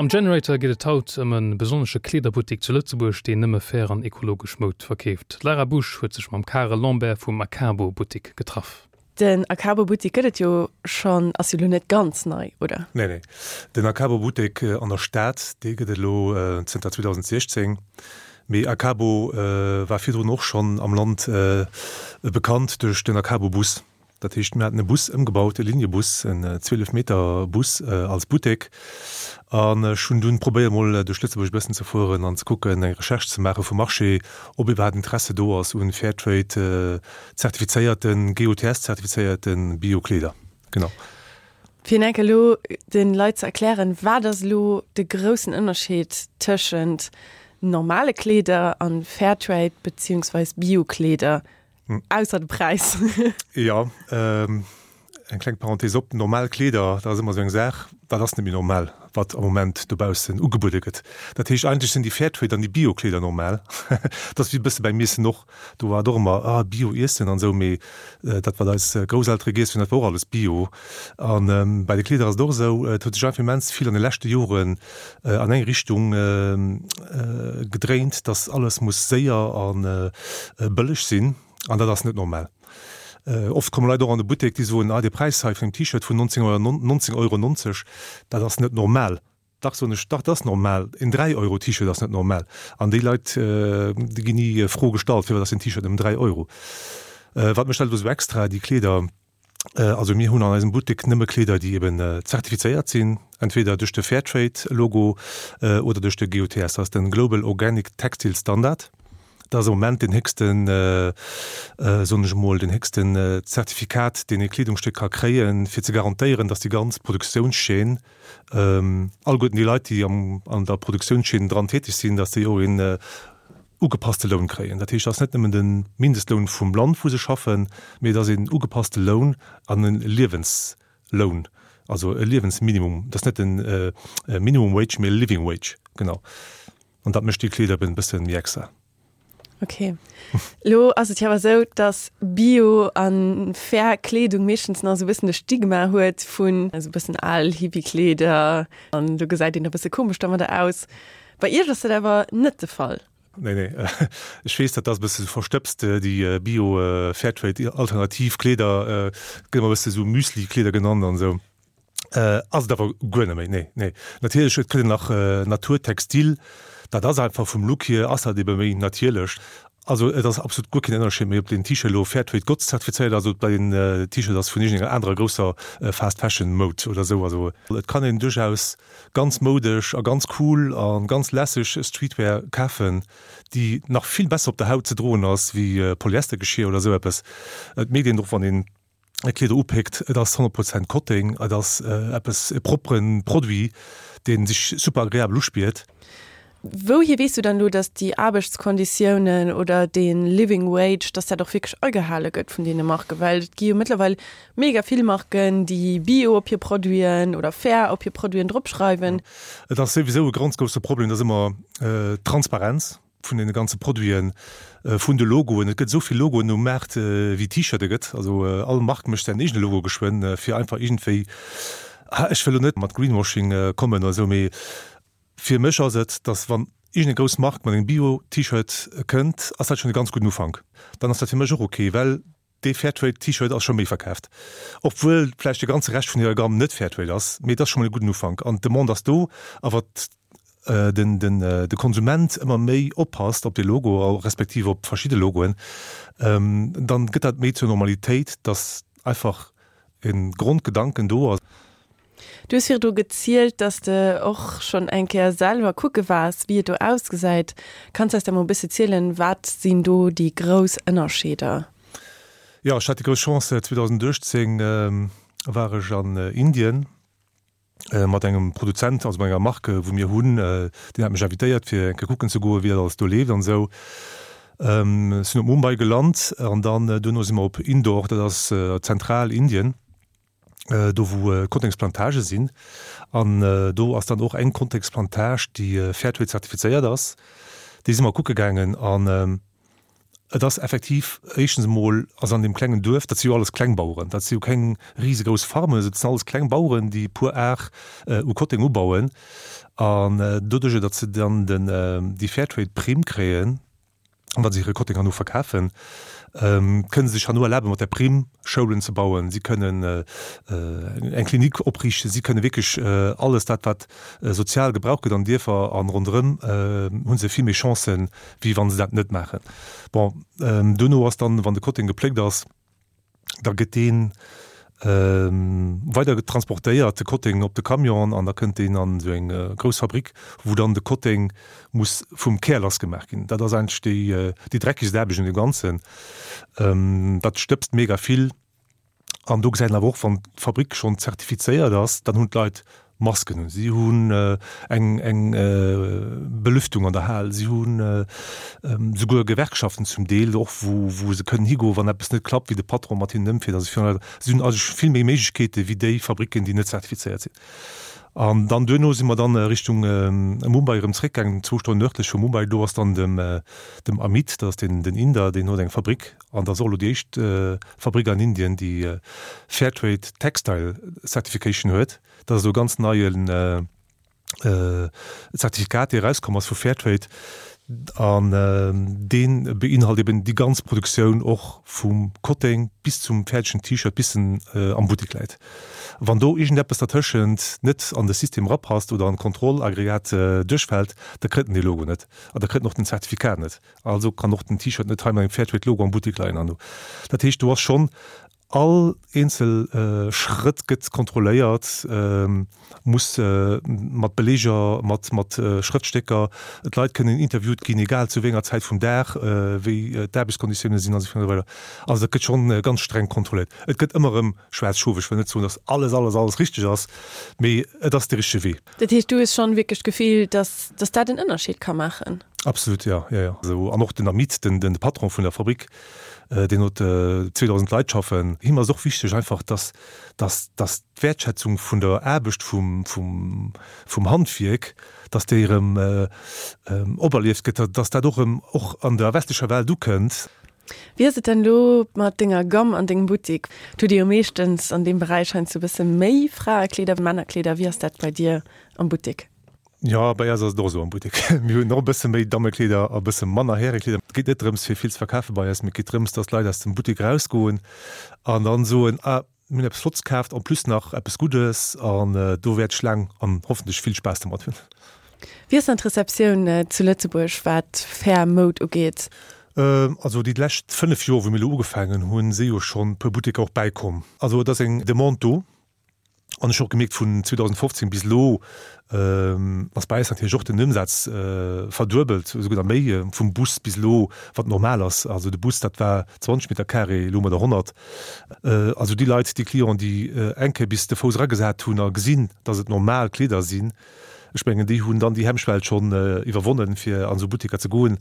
Am Generator geet et haut ëm e besonnesche Kleederbuttek zu Lëtzebuerg, deen nëmme fair an ekologesch Moud verkeeft. D'Lara Busch huet sech mam Karel Lambert vum Akabo Buttek getraff. Den Akabo Buttek gëtt et jo schonn, ass jo lo net ganz nei, oder? Nee, nee. Den Akabo Buttek an der Stad, dee gëtt et elo zënter 2016. Mee Akabo war virdrun och schonn am Land bekannt duerch den Akabo Bus. Dat heescht, mir haten e Bus ëmgebaut, e Liniebus, en 12 Meter Bus als Buttek. An ech hunn dunn probéiert, mol duerch Lëtzebuerg e bëssen ze fueren an ze kucken, eng Recherche ze maache vum Marché, ob iwwerhaapt Interesse do ass un Fairtrade zertifizéierten, GOTS zertifizéierten Bio-Kleeder. Genau. Fir enk elo de Leit ze erklären, wat ass elo de groussen Ënnerscheed tëschent normale Kleeder an Fairtrade beziehungsweis Bio-Kleeder? Ausser de Präis. Jo, eng kleng Parenthese op, normal Kleeder, dat ass ëmmer esou eng Saach, dat ass net méi normal, wat am Moment dobaussen ugebuede gëtt. Dat heescht, eigentlech sinn déi Fairtrade an déi Bio-Kleeder normal. Dat ass wéi e bësse beim Iessen och, do war et och ëmmer, ah, Bio-Iessen an esou, mee dat, wat eis Grousseltere giess hunn, dat war och alles Bio. A bei de Kleeder ass et och esou, et huet sech einfach immens vill an de leschte Joren an eng Richtung gedréint, dass alles muss séier a bëlleg sinn, an dat ass net normal. Oft komme Leit och an de Buttek, déi soen, ah dee Präis hei vun engem T-Shirt vun 19 Euro 90, dat ass net normal. Dach, soen ech, dach, dat ass normal. En 3 Euro T-Shirt ass net normal. An déi Leit, déi ginn ni Fro gestallt, firwat ass den T-Shirt nëmmen 3 Euro. Wat mécht dat elo esou extra, déi Kleeder? Also mir hunn an eisem Buttek nëmme Kleeder, déi eben zertifizéiert sinn, entweder duerch de Fairtrade-Logo oder duerch de GOTS, dat ass den Global Organic Textile Standard. Dat ass am Moment deen héchsten, soen ech emol, deen héchsten Zertifikat, deen ee Kleedungsstéck ka kréien, fir ze garantéieren, datt déi ganz Produktiounschaîne, alleguerten déi Leit, déi an der Produktiounschaîne dran täteg sinn, datt déi och een ugepasste Loun kréien. Dat heescht, et ass net nëmmen de Mindestloun vum Land, wou se schaffen, mee et ass een ugepasste Loun an e Liewensloun, also e Liewensminimum. Et ass net e Minimum Wage, mee e Living Wage, genau. An dat mécht déi Kleeder eben e bësse méi extra. Ok. Lo ass et jo awer esou, dass Bio a fair Kleedung meeschtens nach esou e bëssen de Stigma huet vun esou e bëssen al Hippie-Kleeder an do gesäit een e bësse komesch domadder aus. Bei Iech ass dat awer net de Fall. Nee, nee. Ech weess, dat ass e bësse verstëbst, déi Bio, Fairtrade, alternativ Kleeder, gëtt ëmmer e bësse sou Müsli-Kleeder genannt an esou. Ass et awer guer net méi, nee, nee. Natierlech, et kritt een nach Naturtextil, dat ass einfach vum Look hier ass dat ebe méi natierlech. Also et ass absolut guer keen Ënnerscheed méi, ob deen T-Shirt elo Fairtrade GOTS zertifizéiert ass oder ob dat een T-Shirt ass vun iergendenger anerer grousser Fast Fashion Moud oder esou. Also et kann een duerchaus ganz moudesch a ganz cool a ganz lässeg Streetwear kafen, déi nach vill besser op der Haut ze droen ass wéi Polyestergeschier oder esou eppes. Et mierkt een och wann een Kleeder upéckt, et ass 100 Prozent Kotteng, et ass eppes e proppere Produit, dee sech super agreabel uspiert. Wouhier weess du dann elo, dass déi Aarbechtskonditiounen oder dee Living Wage, dass dat och wierklech agehale gëtt vun deene Marken? Well et gi jo mëttlerweil mega vill Marken, déi Bio op hir Produiten oder fair op hir Produiten dropschreiwen. Et ass souwisou e ganz grousse Problem, dass ëmmer d'Transparenz vun deene ganze Produiten, vun de Logoen, et gëtt esou vill Logoen um Maart wéi T-Shirte gëtt, also all Mark mécht säin eegene Logo geschwënn, fir einfach iergendwéi, ech wëll elo net mat Greenwashing kommen oder esou, mee Fir mech ass et, dass wann iergendeng grouss Mark mat engem Bio-T-Shirt kënnt, ass dat schonn e ganz gudden Ufank. Dann ass dat fir mech och ok, well dee Fairtrade-T-Shirt ass scho méi verkaaft, obwuel vläicht de ganze Rescht vun hirer Gamme net Fairtrade ass, mee et ass scho mol e gudden Ufank an d'Demande ass do. A wat den de Konsument ëmmer méi oppasst op dee Logo, respektiv op verschidde Logoen, dann gëtt dat méi zur Normalitéit, dass einfach e Grondgedanken do ass. Du hues virdru gezielt, dass de och schonn eng Kéier selwer kucke waars, wéi et do ausgesäit. Kanns de eis da mol e bësse zielen, wat sinn do déi grouss Ënnerscheeder? Jo, ech hat déi grouss Chance, 2018 war ech an Indien mat engem Produzent, also mat enger Marque, wou mir hunn. Deen hat mech invitéiert, fir eng Kéier kucken ze goen, wéi dat alles do leeft an esou. Ech sinn op Mumbai gelant an dann duerno si mer op Indore, dat ass Zentral-Indien. do wou Kottengsplantage sinn an do ass dann och eng Kottengsplantage déi Fairtrade zertifizéiert ass, déi si mer kucke gaangen an. Et ass effektiv éischtens emol, also an deem klengen Duerf, dat si jo alles Klengbaueren, dat si jo keng risegrouss Farmen, dat sinn alles kleng Baueren, déi e puer Ar u Kotteng ubauen. An doduerjer, datt se dann den, déi Fairtrade-Primm kréien, wa se hire Kotteng herno verkafen, kënne se sech herno erlaben, mat där Primm Schoulen ze bauen, si kënnen eng Klinik opriichten, si kënne wierklech alles dat, wat sozial gebraucht gëtt an Dierfer an ronderëm, hu se vill méi Chancen, wéi wa se dat net maachen. Bon, duerno ass dann, wann de Kotteng gepléckt ass, da gëtt dee weider transportéiert, de Kotteng op de Camion an da kënnt deen an esou eng grouss Fabrik, wou dann de Kotteng muss vum Kär lassgemaach ginn. Dat ass eigentlech déi, déi dreckegst Aarbecht un deem Ganzen. Dat stëbst mega vill. An do gesäit een awer och, wann d'Fabrik schonn zertifizéiert ass, dann hunn d'Leit Masken un, si hunn eng eng Belüftung an der Hal, si hunn souguer Gewerkschaften zum Deel och, wou wou se kënnen higoen, wann eppes net klappt, wéi de Patron mat hinnen ëmfiert. Also virun allem, si hunn eigentlech vill méi Méiglechkeete wéi déi Fabricken, déi net zertifizéiert sinn. An dann duerno si mer dann Richtung Mumbai erëm zréckgaangen, zwou Stonnen nërdlech vu Mumbai. Do ass dann dem dem Amit, dat ass den den Inder, deen huet eng Fabrik an dat ass och elo déi éischt Fabrik an Indien, déi Fairtrade Textile Certification huet. Dat ass elo e ganz neien Zertifikat, dee erauskomm ass vu Fairtrade an dee beinhalt eben déi ganz Produktioun och vum Kotteng bis zum fäerdegen T-Shirt, bis en am Buttek läit. Wann do iergendeppes dertëschent net an de System erapasst oder an d'Kontrollaggregat duerchfält, da kritt en dee Logo net an da kritt en och den Zertifikat net. Also kann och den T-Shirt net hei mat engem Fairtrade-Logo am Buttek leien an do. Dat heescht, do ass schonn all eenzel Schrëtt gëtt kontrolléiert, muss mat Beleeger, mat mat Schrëftstécker, d'Leit kënnen interviewt ginn, egal zu wéi enger Zäit vum Dag, wéi d'Aarbechtskonditioune sinn an esou virun a weider. Also dat gëtt schonn ganz streng kontrolléiert. Et gëtt ëmmer erëm schwaarz Schof. Ech wëll net soen, datt alles, alles, alles richteg ass, mee et ass de richtege Wee. Dat heescht, du hues schonn wierklech d'Gefill, dass, dass dat en Ënnerscheed ka maachen? Absolut, jo, jo, jo. Also, an och den Amit, den, den Patron vun der Fabrik, deen huet 2.000 Leit schaffen. Him ass och wichteg einfach, dass, dass, dass d'Wäertschätzung vun der Aarbecht vum, vum, vum Handwierk, dass déi erëm operlieft gëtt, dass dat och erëm och an der westlecher Welt ukënnt. Wéi ass et dann elo mat denger Gamme an dengem Buttik? Hutt Dir jo meeschtens an deem Beräich heiansdo e bësse méi Fraekleeder, Männerkleeder. Wéi ass dat bei dir am Buttik? Jo, bei eis ass et och esou am Buttek. Mir hunn och e bësse méi Dammekleeder a bësse manner Härekleeder. Et geet net drëms, fir vill ze verkafe bei eis, mee et geet drëms, dass d'Leit aus dem Buttek erausgoen an dann soen, Ah, Mir hunn eppes Flotts kaaft, en plus nach eppes Guddes an do wäert ech laang an hoffentlech vill Spaass domat hunn. Wéi ass dann d'Receptioun zu Lëtzebuerg wat fair Moud ugeet? Also déi lescht 5 Joer wou mir elo ugefaangen hunn, si jo schonn e puer Butteker och bäikomm. Also et ass eng Demande do an ech hu och gemierkt vun 2015 bis elo ass bei eis natierlech och den Ëmsaz verduebelt, esouguer nach méi, vum Bus bis elo, wat normal ass. Also de Bus, dat war 20 Meter carré, elo hu mer der 100. Also déi Leit, déi Clienten, déi eng Kéier bis de Fouss eragesat hunn a gesinn, datt et normal Kleeder sinn, ech mengen, déi hunn dann déi Hemmschwell schonn iwwerwonnen, fir an esou Butteker ze goen.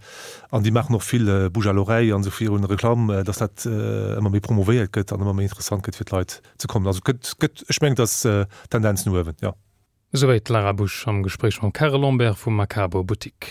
An déi maachen och vill Bouche à l'oreille an esou virun, Reklamm, datt dat ëmmer méi promouvéiert gëtt an ëmmer méi interessant gëtt fir d'Leit ze kommen. Also et gëtt, gëtt, ech mengen, et ass Tendenz no uewen, jo. Esouwäit d'Lara Busch am Gespréich mam Karel Lambert vum Macabo Buttik.